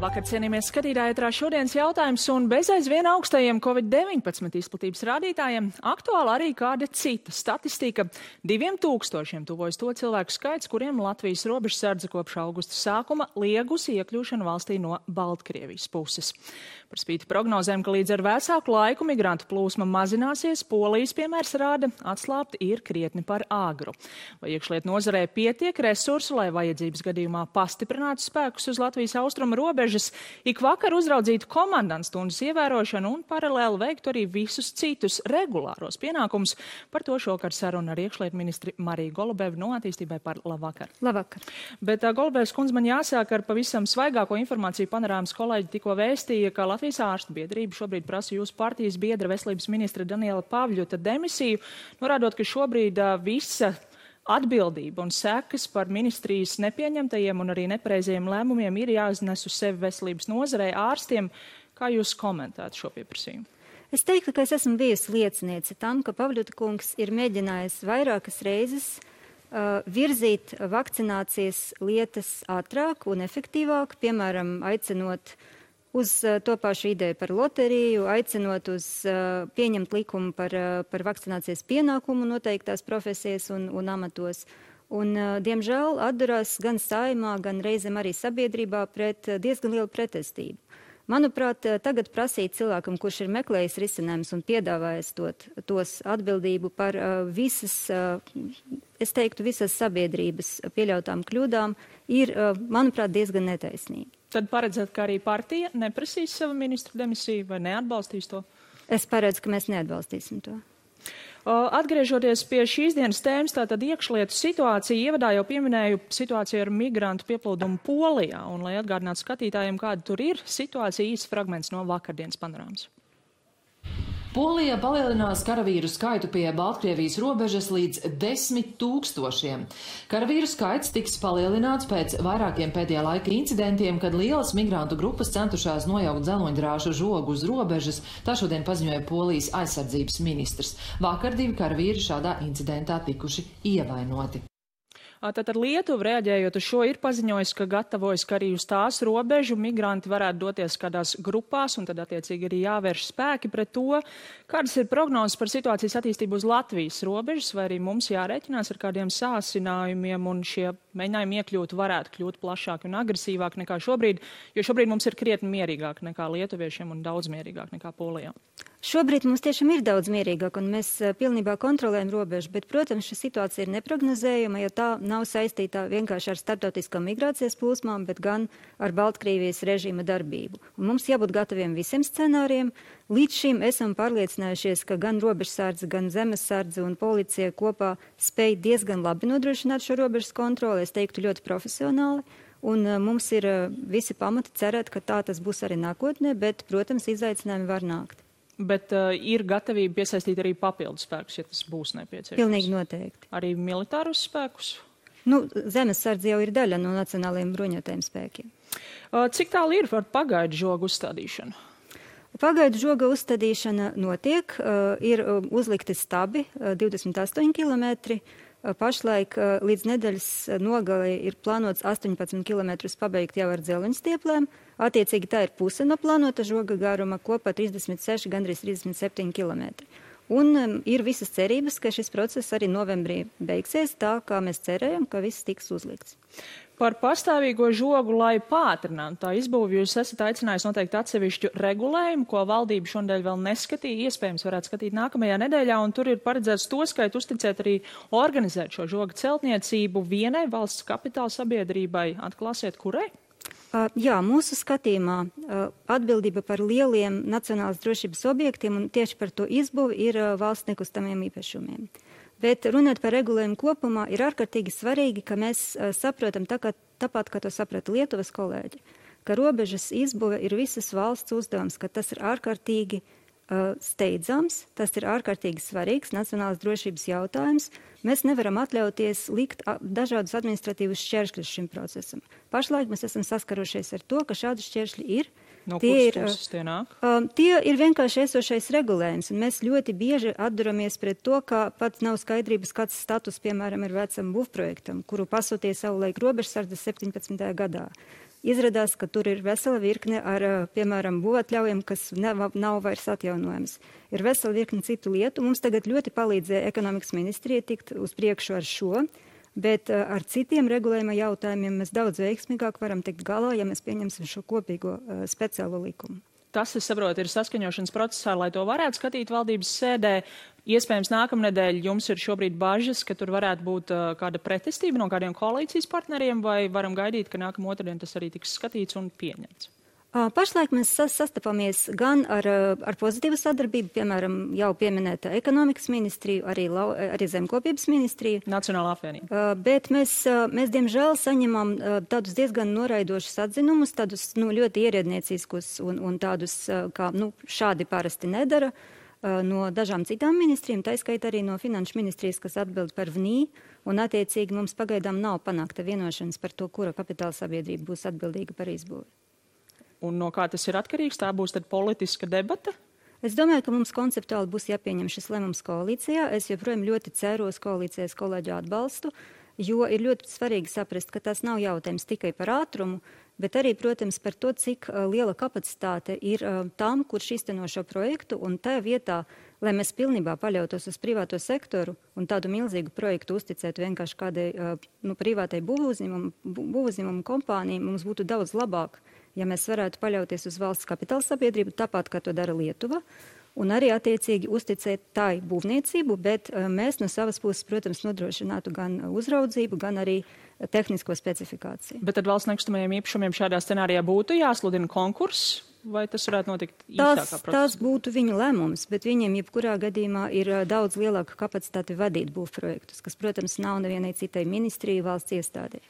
Labvakar, cienījamies skatītāji, ētrā šodienas jautājums un bez aizvien augstajiem Covid-19 izplatības rādītājiem aktuāli arī kāda cita statistika. 2000 tuvojas to cilvēku skaits, kuriem Latvijas robežsardze kopš augusta sākuma liegusi iekļūšanu valstī no Baltkrievijas puses. Par spīti prognozēm, ka līdz ar vēsāku laiku migrantu plūsma mazināsies, Polijas piemērs rāda, atslābt ir krietni par āgru. Vai iekšlietu nozarē pietiek resursu, lai vajadzības gadījumā pastiprinātu spēkus uz Latvijas austrumu robežas, ik vakar uzraudzītu komandantstundas ievērošanu un paralēli veiktu arī visus citus regulāros pienākumus? Par to šokar saruna ar iekšlietu ministri Mariju Golubevu no Attīstībai par labvakar. Labvakar. Bet Golubevs kundze, man jāsāk ar pavisam svaigāko informāciju. Panorāmas kolēģi tikko vēstīja, ka Latvijas ārstu biedrība šobrīd prasa jūsu partijas biedra veselības ministra Daniela Pavļuta demisiju, norādot, ka šobrīd visa atbildība un sekas par ministrijas nepieņemtajiem un arī nepareizajiem lēmumiem ir jāiznes uz sevi veselības nozarei, ārstiem. Kā jūs komentētu šo pieprasījumu? Es teiktu, ka es esmu bijusi lieciniece tam, ka Pavļuta kungs ir mēģinājis vairākas reizes virzīt vakcinācijas lietas ātrāk un efektīvāk, piemēram, aicinot uz to pašu ideju par loteriju, aicinot uz pieņemt likumu par vakcinācijas pienākumu noteiktās profesijas un amatos. Un, diemžēl, atdurās gan saimā, gan reizēm arī sabiedrībā pret diezgan lielu pretestību. Manuprāt, tagad prasīt cilvēkam, kurš ir meklējis risinājumus un piedāvājis tos atbildību par visas, es teiktu, visas sabiedrības pieļautām kļūdām, ir, manuprāt, diezgan netaisnīgi. Tad paredzat, ka arī partija neprasīs savu ministru demisiju vai neatbalstīs to? Es paredzu, ka mēs neatbalstīsim to. Atgriežoties pie šīs dienas tēmas, tātad iekšlietu situācija, ievadā jau pieminēju situāciju ar migrantu pieplūdumu Polijā, un lai atgādinātu skatītājiem, kāda tur ir situācija, īsts fragments no vakardienas panorāmas. Polija palielinās karavīru skaitu pie Baltkrievijas robežas līdz 10 000. Karavīru skaits tiks palielināts pēc vairākiem pēdējā laika incidentiem, kad lielas migrantu grupas centušās nojaukt dzeloņdrāšu žogu uz robežas, tā šodien paziņoja Polijas aizsardzības ministrs. Vakar 2 karavīri šādā incidentā tikuši ievainoti. Tātad Lietuva, reaģējot uz šo, ir paziņojis, ka gatavojas, ka arī uz tās robežu migranti varētu doties kādās grupās, un tad attiecīgi arī jāvērš spēki pret to. Kādas ir prognozes par situācijas attīstību uz Latvijas robežas, vai arī mums jārēķinās ar kādiem sāsinājumiem, un šie mēģinājumi iekļūt varētu kļūt plašāki un agresīvāki nekā šobrīd, jo šobrīd mums ir krietni mierīgāk nekā lietuviešiem un daudz mierīgāk nekā Polijā? Šobrīd mums tiešām ir daudz mierīgāk, un mēs pilnībā kontrolējam robežu, bet, protams, šī situācija ir neprognozējama, jo tā nav saistīta vienkārši ar starptautiskām migrācijas plūsmām, bet gan ar Baltkrievijas režīma darbību. Un mums jābūt gataviem visiem scenāriem. Līdz šim esam pārliecinājušies, ka gan robežsardze, gan zemesardze un policija kopā spēj diezgan labi nodrošināt šo robežas kontroli, es teiktu ļoti profesionāli. Un mums ir visi pamati cerēt, ka tā tas būs arī nākotnē, bet, protams, izaicinājumi var nākt. Bet ir gatavība piesaistīt arī papildus spēkus, ja tas būs nepieciešams? Pilnīgi noteikti. Arī militārus spēkus? Zemesardze jau ir daļa no nacionālajiem bruņotajiem spēkiem. Cik tālu ir par pagaidu žogu uzstādīšanu? Pagaidu žoga uzstādīšana notiek, ir uzlikti stabi 28 kilometri. Pašlaik līdz nedēļas nogalei ir plānots 18 km pabeigt jau ar dzelveņstieplēm. Attiecīgi tā ir puse no plānota žoga garuma, kopā 36, gandrīz 37 km. Un ir visas cerības, ka šis process arī novembrī beigsies tā, kā mēs cerējam, ka viss tiks uzlikts. Par pastāvīgo žogu, lai pātrinātu tā izbūvi, jūs esat aicinājis noteikti atsevišķu regulējumu, ko valdība šodien vēl neskatīja, iespējams varētu skatīt nākamajā nedēļā, un tur ir paredzēts to skaitu uzticēt arī organizēt šo žoga celtniecību vienai valsts kapitāla sabiedrībai. Atklāsiet, kurai? Jā, mūsu skatījumā atbildība par lieliem nacionālas drošības objektiem un tieši par to izbūvi ir valsts nekustamiem īpašumiem. Bet runāt par regulējumu kopumā ir ārkārtīgi svarīgi, ka mēs saprotam tāpat, kā to saprata Lietuvas kolēģi, ka robežas izbūve ir visas valsts uzdevums, ka tas ir ārkārtīgi steidzams, tas ir ārkārtīgi svarīgs nacionālas drošības jautājums. Mēs nevaram atļauties likt dažādus administratīvus šķēršļus šim procesam. Pašlaik mēs esam saskarušies ar to, ka šādi šķēršļi ir. No kuras puses tie nāk? Tie ir vienkārši esošais regulējums, un mēs ļoti bieži atduramies pret to, ka pat nav skaidrības, kāds status, piemēram, ir vecam būvprojektam, kuru pasūtīja savulaik robežsardze 17. gadā. izrādās, ka tur ir vesela virkne ar, piemēram, būvatļaujiem, kas nav vairs atjaunojams. Ir vesela virkne citu lietu. Mums tagad ļoti palīdzēja ekonomikas ministrija tikt uz priekšu ar šo, bet ar citiem regulējuma jautājumiem mēs daudz veiksmīgāk varam tikt galā, ja mēs pieņemsim šo kopīgo speciālo likumu. Tas, es saprotu, ir saskaņošanas procesā, lai to varētu skatīt valdības sēdē. Iespējams, nākamnedēļ jums ir šobrīd bažas, ka tur varētu būt kāda pretestība no kādiem koalīcijas partneriem, vai varam gaidīt, ka nākamā otrdien tas arī tiks skatīts un pieņemts? Pašlaik mēs sastapamies gan ar pozitīvu sadarbību, piemēram, jau pieminēta ekonomikas ministriju, arī zemkopības ministriju. Nacionālā apvienība. Bet mēs diemžēl saņemam tādus diezgan noraidošus atzinumus, tādus ļoti ierēdnieciskus un tādus, kā šādi parasti nedara, no dažām citām ministrijām, taiskaitā arī no finanšu ministrijas, kas atbild par VNI, un attiecīgi mums pagaidām nav panākta vienošanas par to, kura kapitāla sabiedrība būs atbildīga par izbūvi. Un no kā tas ir atkarīgs? Tā būs tad politiska debata? Es domāju, ka mums konceptuāli būs jāpieņem šis lēmums koalīcijā. Es joprojām ļoti ceru uz koalīcijas kolēģu atbalstu, jo ir ļoti svarīgi saprast, ka tas nav jautājums tikai par ātrumu, bet arī, protams, par to, cik liela kapacitāte ir tam, kurš īsteno šo projektu, un tajā vietā, lai mēs pilnībā paļautos uz privāto sektoru un tādu milzīgu projektu uzticētu vienkārši kādai privātai būvuzņēmumu kompānijai, mums būtu daudz labāk, ja mēs varētu paļauties uz valsts kapitāla sabiedrību, tāpat, kā to dara Lietuva, un arī attiecīgi uzticēt tai būvniecību, bet mēs no savas puses, protams, nodrošinātu gan uzraudzību, gan arī tehnisko specifikāciju. Bet tad valsts nekustamajiem īpašumiem šādā scenārijā būtu jāsludina konkurss? Vai tas varētu notikt īsākā procesā? Tas būtu viņu lēmums, bet viņiem jebkurā gadījumā ir daudz lielāka kapacitāte vadīt būvprojektus, kas, protams, nav nevienai citai ministrijai valsts iestādē.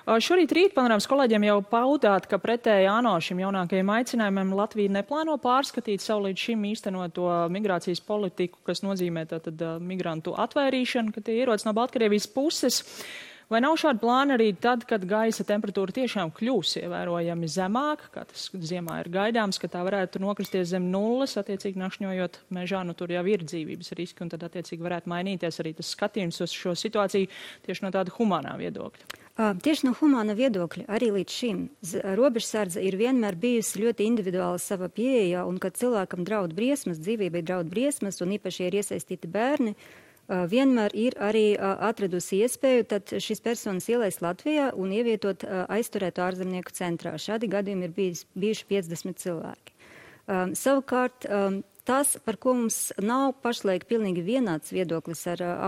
Šorīt rīt panorāmas kolēģiem jau paudāt, ka pretēji ANO šim jaunākajiem aicinājumiem Latvija neplāno pārskatīt savu līdz šim īstenoto migrācijas politiku, kas nozīmē tātad migrantu atvairīšanu, ka tie ierodas no Baltkrievijas puses. Vai nav šādi plāni arī tad, kad gaisa temperatūra tiešām kļūs ievērojami zemāka, kā tas ziemā ir gaidāms, ka tā varētu nokristies zem nulles, attiecīgi nakšņojot mežā, tur jau ir dzīvības riski, un tad attiecīgi varētu mainīties arī tas skatījums uz šo situāciju tieši no tāda humānā viedokļa? Tieši no humāna viedokļa arī līdz šim robežsardze ir vienmēr bijusi ļoti individuāla sava pieeja, un kad cilvēkam draud briesmas, dzīvībai draud briesmas, un īpaši ir iesaistīti bērni, vienmēr ir arī atradusi iespēju tad šīs personas ielaist Latvijā un ievietot aizturētu ārzemnieku centrā. Šādi gadījumi ir bijuši 50 cilvēki. Savukārt, tas, par ko mums nav pašlaik pilnīgi vienāds viedoklis ar ANO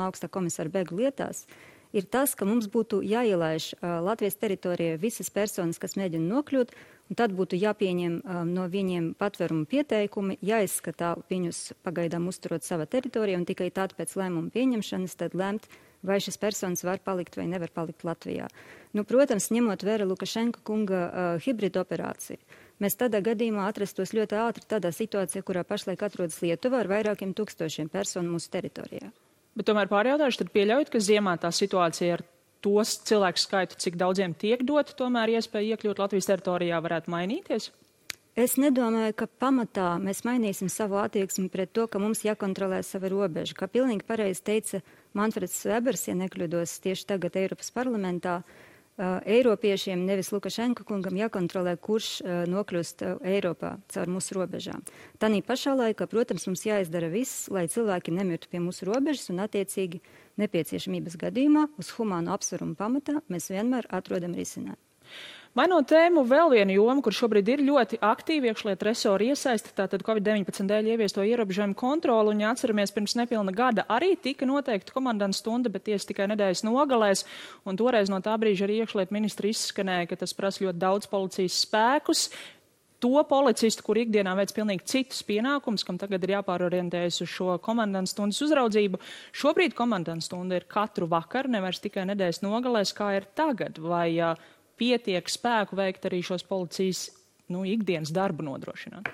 augsta komisāru bēgļu lietās, ir tas, ka mums būtu jāielaiž Latvijas teritorijā visas personas, kas mēģina nokļūt, un tad būtu jāpieņem no viņiem patvērumu pieteikumi, jāizskatā viņus pagaidām uzturot savā teritorijā, un tikai tad pēc lēmuma pieņemšanas tad lemt, vai šis personas var palikt vai nevar palikt Latvijā. Protams, ņemot vērā Lukašenka kunga hibrida operāciju, mēs tādā gadījumā atrastos ļoti ātri tādā situācijā, kurā pašlaik atrodas Lietuva ar vairākiem tūkstošiem personu mūsu teritorijā. Bet tomēr pārjautājuši, tad pieļaujat, ka ziemā tā situācija ar tos cilvēku skaitu, cik daudziem tiek dot, tomēr iespēja iekļūt Latvijas teritorijā varētu mainīties? Es nedomāju, ka pamatā mēs mainīsim savu attieksmi pret to, ka mums jākontrolē sava robeža. Kā pilnīgi pareizi teica Manfreds Webers, ja nekļūdos tieši tagad Eiropas parlamentā, Eiropiešiem, nevis Lukašenka kungam, jākontrolē, kurš nokļūst Eiropā caur mūsu robežām. Tanī pašā laikā, protams, mums jāizdara viss, lai cilvēki nemirtu pie mūsu robežas, un attiecīgi nepieciešamības gadījumā uz humānu apsvarumu pamatā mēs vienmēr atrodam risinājumu. Mainot tēmu, vēl viena joma, kur šobrīd ir ļoti aktīvi iekšlietu resori iesaisti, tātad Covid-19 dēļ ieviesto ierobežojumu kontroli, un ja atceramies, pirms nepilna gada arī tika noteikta komandanta stunda, bet tiesa tikai nedēļas nogalēs, un toreiz no tā brīža arī iekšlietu ministri izskanēja, ka tas prasa ļoti daudz policijas spēkus. To policistu, kur ikdienā veic pilnīgi citus pienākumus, kam tagad ir jāpārorientējas uz šo komandanta stundas uzraudzību. Šobrīd komandanta stunda ir katru vakaru, nevairs tikai nedēļas nogalēs, kā ir tagad, vai pietiek spēku veikt arī šos policijas ikdienas darbu nodrošināt?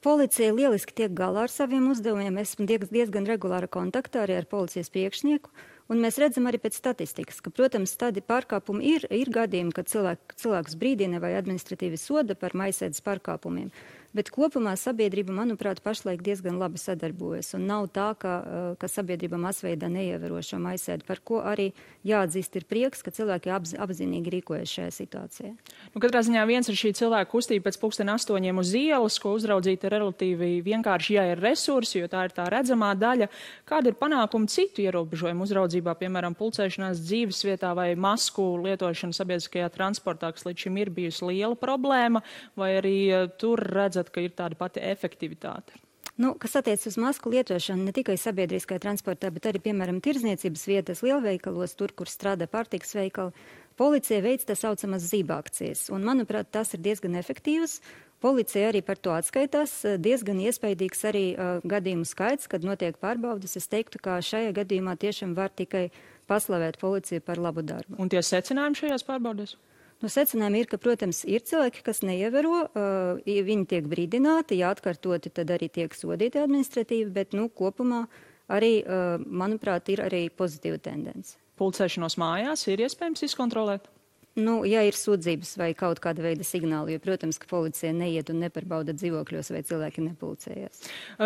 Policija lieliski tiek galā ar saviem uzdevumiem. Esmu diezgan regulāra kontaktā arī ar policijas priekšnieku, un mēs redzam arī pēc statistikas, ka, protams, tādi pārkāpumi ir gadījumi, kad cilvēks brīdina vai administratīvi soda par maisēdes pārkāpumiem. Bet kopumā sabiedrība, manuprāt, pašlaik diezgan labi sadarbojas. Un nav tā, ka sabiedrība masveidā neievēro šo maisēdi, par ko arī jāatzīst ir prieks, ka cilvēki apzinīgi rīkojas šajā situācijā. Katrā ziņā viens ir šī cilvēka kustība pēc 7:30 uz ielas, ko uzraudzīt ir relatīvi vienkārši, ja ir resursi, jo tā ir tā redzamā daļa. Kāda ir panākuma citu ierobežojumu uzraudzībā, piemēram, pulcēšanās dzīves vietā vai masku lietošana sabiedriskajā transportā, kas līdz šim ir bijusi liela problēma, vai arī tur redzat, ka ir tāda pati efektivitāte? Kas attiec uz masku lietošanu ne tikai sabiedriskajā transportā, bet arī, piemēram, tirdzniecības vietas, lielveikalos, tur, kur strādā pārtikas veikali, policija veic tā saucamas zībakcijas. Un, manuprāt, tas ir diezgan efektīvs. Policija arī par to atskaitās. Diezgan iespaidīgs arī gadījumu skaits, kad notiek pārbaudas. Es teiktu, ka šajā gadījumā tiešām var tikai paslavēt policiju par labu darbu. Un tie secinājumi šajās pārbaudēs? Secinājumi ir, ka, protams, ir cilvēki, kas neievēro, viņi tiek brīdināti, ja atkārtoti, tad arī tiek sodīti administratīvi, bet, kopumā arī, manuprāt, ir arī pozitīva tendence. Pulcēšanos mājās ir iespējams izkontrolēt? Ja ir sūdzības vai kaut kāda veida signāli, jo, protams, ka policija neiet un neparbauda dzīvokļos, vai cilvēki nepulcējas.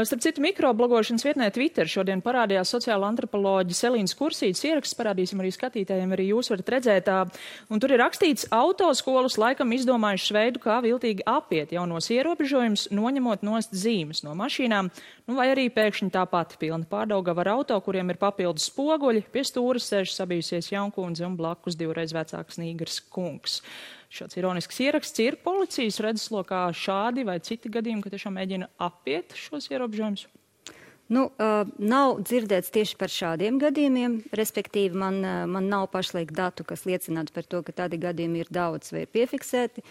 Starp citu, mikroblogošanas vietnē Twitter šodien parādījās sociāla antropoloģa Selīnas Kursītes ieraksts, parādīsim arī skatītājiem, arī jūs varat redzēt. Un tur ir rakstīts, autoskolas laikam izdomājušas veidu, kā viltīgi apiet jaunos ierobežojumus, noņemot nost zīmes no mašīnām, vai arī pēkšņi tā pati pilna pārdaugava ar auto, kuriem ir papildus spoguļi, pie stūras sēž sabijusies jaunkundze un blakus divreiz vecāks nīgars kungs. Šāds ironisks ieraksts ir policijas redzeslokā šādi vai citi gadījumi, ka tiešām mēģina apiet šos ierobežojumus? Nav dzirdēts tieši par šādiem gadījumiem, respektīvi man nav pašlaik datu, kas liecinātu par to, ka tādi gadījumi ir daudz vai ir piefiksēti.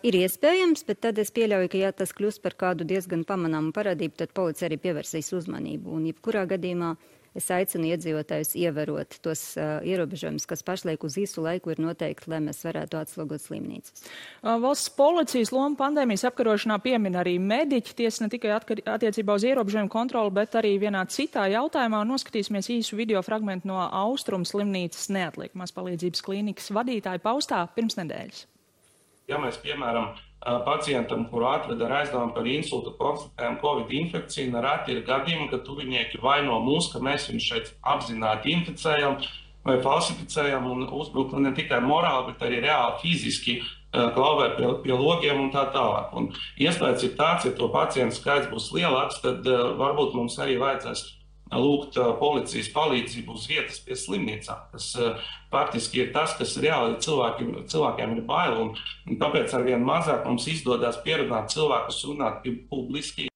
Ir iespējams, bet tad es pieļauju, ka ja tas kļūst par kādu diezgan pamanāmu parādību, tad policija arī pievērsīs uzmanību. Un jebkurā gadījumā es aicinu iedzīvotājus ievērot tos ierobežojumus, kas pašlaik uz īsu laiku ir noteikti, lai mēs varētu atslogot slimnīcas. Valsts policijas loma pandēmijas apkarošanā piemin arī mediķi, tiesa ne tikai attiecībā uz ierobežojumu kontroli, bet arī vienā citā jautājumā. Noskatīsimies īsu video fragmentu no Austrumu slimnīcas neatliekamās palīdzības klīnikas vadītāja paustā pirms nedēļas. Ja mēs, piemēram, pacientam, kuru atved ar aizdevumu par insultu, konstatējam Covid infekciju, nereti ir gadījumi, ka tuvinieki vaino mūs, ka mēs viņus šeit apzināti inficējam vai falsificējam un uzbrukam ne tikai morāli, bet arī reāli fiziski klauvē pie logiem un tā tālāk. Un iespējas ir tāds, ja to pacientu skaits būs lielāks, tad varbūt mums arī vajadzēs lūgt policijas palīdzību uz vietas pie slimnīcām. Tas faktiski ir tas, kas reāli cilvēkiem ir bail, un tāpēc arvien mazāk mums izdodas pierunāt cilvēkus runāt publiski.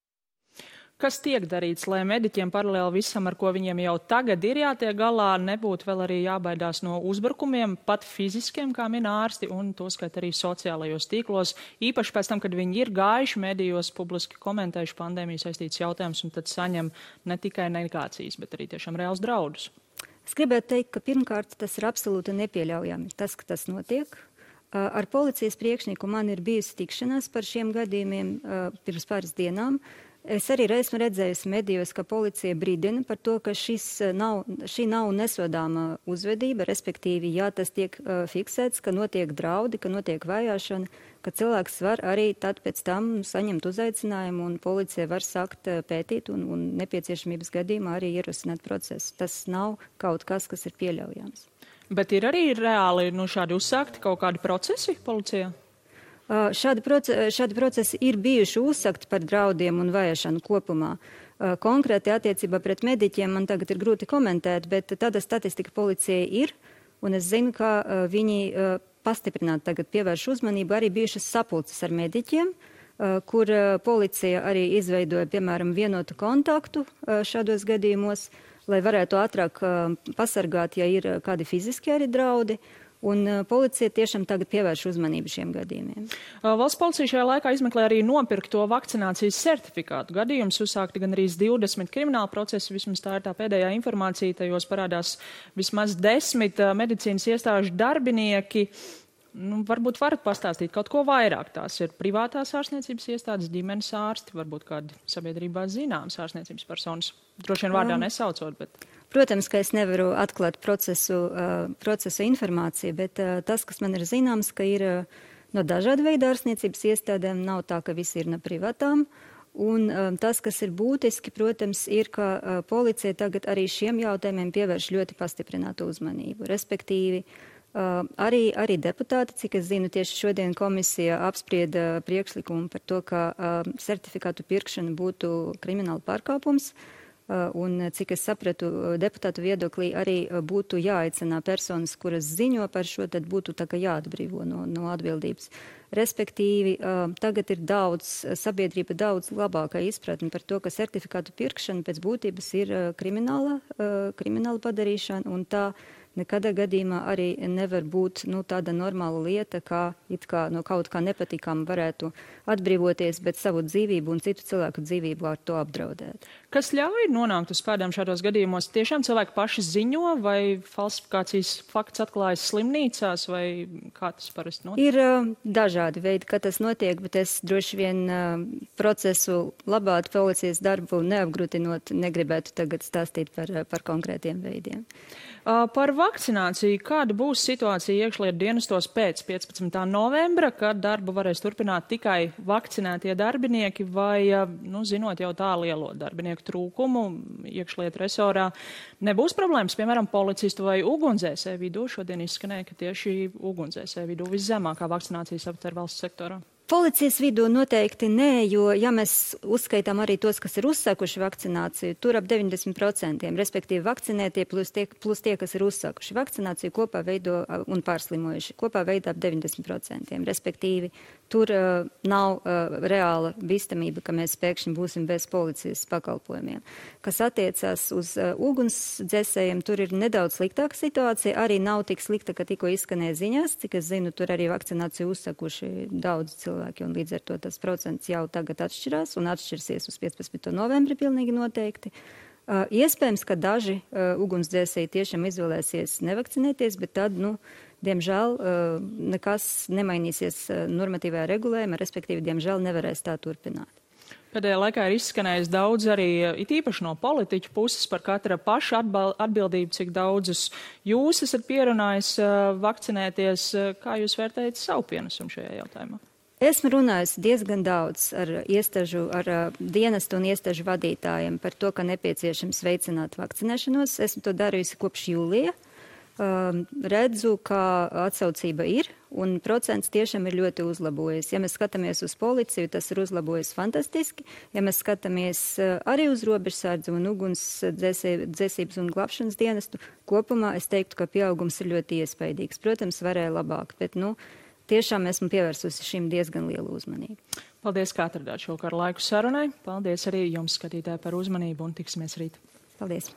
Kas tiek darīts, lai mediķiem paralēli visam, ar ko viņiem jau tagad ir jātiek galā, nebūtu vēl arī jābaidās no uzbrukumiem, pat fiziskiem, kā min ārsti, un to skait arī sociālajos tīklos, īpaši pēc tam, kad viņi ir gājuši medijos, publiski komentējuši pandēmiju saistīts jautājums, un tad saņem ne tikai negācijas, bet arī tiešām reāls draudus. Es gribētu teikt, ka pirmkārt tas ir absolūti nepieļaujami, tas, ka tas notiek. Ar policijas priekšnieku man ir bijusi tikšanās par šiem gadījumiem pirms pāris dienām. Es arī esmu redzējusi medijos, ka policija brīdina par to, ka šī nav nesodāma uzvedība, respektīvi, ja tas tiek fiksēts, ka notiek draudi, ka notiek vajāšana, ka cilvēks var arī tad pēc tam saņemt uzaicinājumu un policija var sākt pētīt un nepieciešamības gadījumā arī ierosināt procesu. Tas nav kaut kas, kas ir pieļaujams. Bet ir arī reāli šādi uzsākti kaut kādi procesi policijā? Šādi procesi ir bijuši uzsakti par draudiem un vajāšanu kopumā. Konkrēti attiecībā pret mediķiem man tagad ir grūti komentēt, bet tāda statistika policijai ir, un es zinu, ka viņi pastiprināti tagad pievērš uzmanību arī bijušas sapulces ar mediķiem, kur policija arī izveidoja, piemēram, vienotu kontaktu šādos gadījumos, lai varētu ātrāk pasargāt, ja ir kādi fiziski arī draudi. Un policija tiešām tagad pievērš uzmanību šiem gadījumiem. Valsts policija šajā laikā izmeklē arī nopirkto vakcinācijas certifikātu gadījumus. Uzsākti gan arī 20 krimināla procesi, vismaz tā ir tā pēdējā informācija, tajos parādās vismaz 10 medicīnas iestāžu darbinieki. Varbūt varat pastāstīt kaut ko vairāk. Tās ir privātās ārstniecības iestādes, ģimenes ārsti, varbūt kādi sabiedrībā zināmas ārstniecības personas. Droši vien vārdā nesaucot, bet... Protams, ka es nevaru atklāt procesu informāciju, bet tas, kas man ir zināms, ka ir no dažādu veidu ārstniecības iestādēm, nav tā, ka visi ir no privātām. Un tas, kas ir būtiski, protams, ir, ka policija tagad arī šiem jautājumiem pievērš ļoti pastiprinātu uzmanību. Respektīvi, arī deputāti, cik es zinu, tieši šodien komisija apsprieda priekšlikumu par to, ka certifikātu pirkšana būtu krimināla pārkāpums. Un, cik es sapratu, deputātu viedoklī arī būtu jāaicina personas, kuras ziņo par šo, tad būtu tā kā jāatbrīvo no atbildības. Respektīvi, tagad ir sabiedrība daudz labākā izpratne par to, ka certifikātu pirkšana pēc būtības ir krimināla padarīšana, un tā nekadā gadījumā arī nevar būt tāda normāla lieta, kā no kaut kā nepatīkama varētu atbrīvoties, bet savu dzīvību un citu cilvēku dzīvību ar to apdraudēt. Kas ļauj nonākt uz pēdām šādos gadījumos? Tiešām cilvēki paši ziņo, vai falsifikācijas fakts atklājas slimnīcās, vai kā tas parasti notiek? Ir dažādi veidi, kā tas notiek, bet es droši vien procesu labātu policijas darbu neapgrūtinot, negribētu tagad stāstīt par konkrētiem veidiem. Par vakcināciju. Kāda būs situācija iekšlietu dienestos pēc 15. novembra, kad darbu varēs turpināt tikai vakcinētie darbinieki vai, zinot jau tā lielo darbinieku trūkumu iekšlietu resorā, nebūs problēmas, piemēram, policistu vai ugunsdzēsēju vidū? Šodien izskanēja, ka tieši ugunsdzēsēju vidū viszemākā vakcinācijas aptver valsts sektorā. Policijas vidū noteikti nē, jo, ja mēs uzskaitām arī tos, kas ir uzsākuši vakcināciju, tur ap 90%, respektīvi vakcinētie plus tie, kas ir uzsākuši vakcināciju, kopā veido un pārslimojuši, kopā veido ap 90%. Respektīvi, tur nav reāla bīstamība, ka mēs pēkšņi būsim bez policijas pakalpojumiem. Kas attiecās uz ugunsdzēsējiem, tur ir nedaudz sliktāka situācija, arī nav tik slikta, ka tikko izskanēja ziņās, cik es zinu, tur arī vakcināciju uzsākuši daudz cilvēki. Un līdz ar to tas procents jau tagad atšķirās un atšķirsies uz 15. novembri pilnīgi noteikti. Iespējams, ka daži ugunsdzēsēji tiešām izvēlēsies nevakcinēties, bet tad, diemžēl, nekas nemainīsies normatīvajā regulējumā, respektīvi, diemžēl nevarēs tā turpināt. Pēdējā laikā ir izskanējis daudz arī, it īpaši no politiķu puses, par katra paša atbildību, cik daudzus jūs esat pierunājis vakcinēties. Kā jūs vērtējat savu pienesumu šajā jautājumā? Esmu runājusi diezgan daudz ar dienestu un iestāžu vadītājiem par to, ka nepieciešams veicināt vakcinēšanos. Esmu to darījusi kopš jūlija. Redzu, ka atsaucība ir un procents tiešām ir ļoti uzlabojies. Ja mēs skatāmies uz policiju, tas ir uzlabojies fantastiski. Ja mēs skatāmies arī uz robežsardzi un ugunsdzēsības un glābšanas dienestu, kopumā es teiktu, ka pieaugums ir ļoti iespaidīgs. Protams, varēja labāk, bet tiešām esmu pievērsusi šim diezgan lielu uzmanību. Paldies, ka atradāt šovakar laiku sarunai. Paldies arī jums, skatītāji, par uzmanību un tiksimies rīt. Paldies.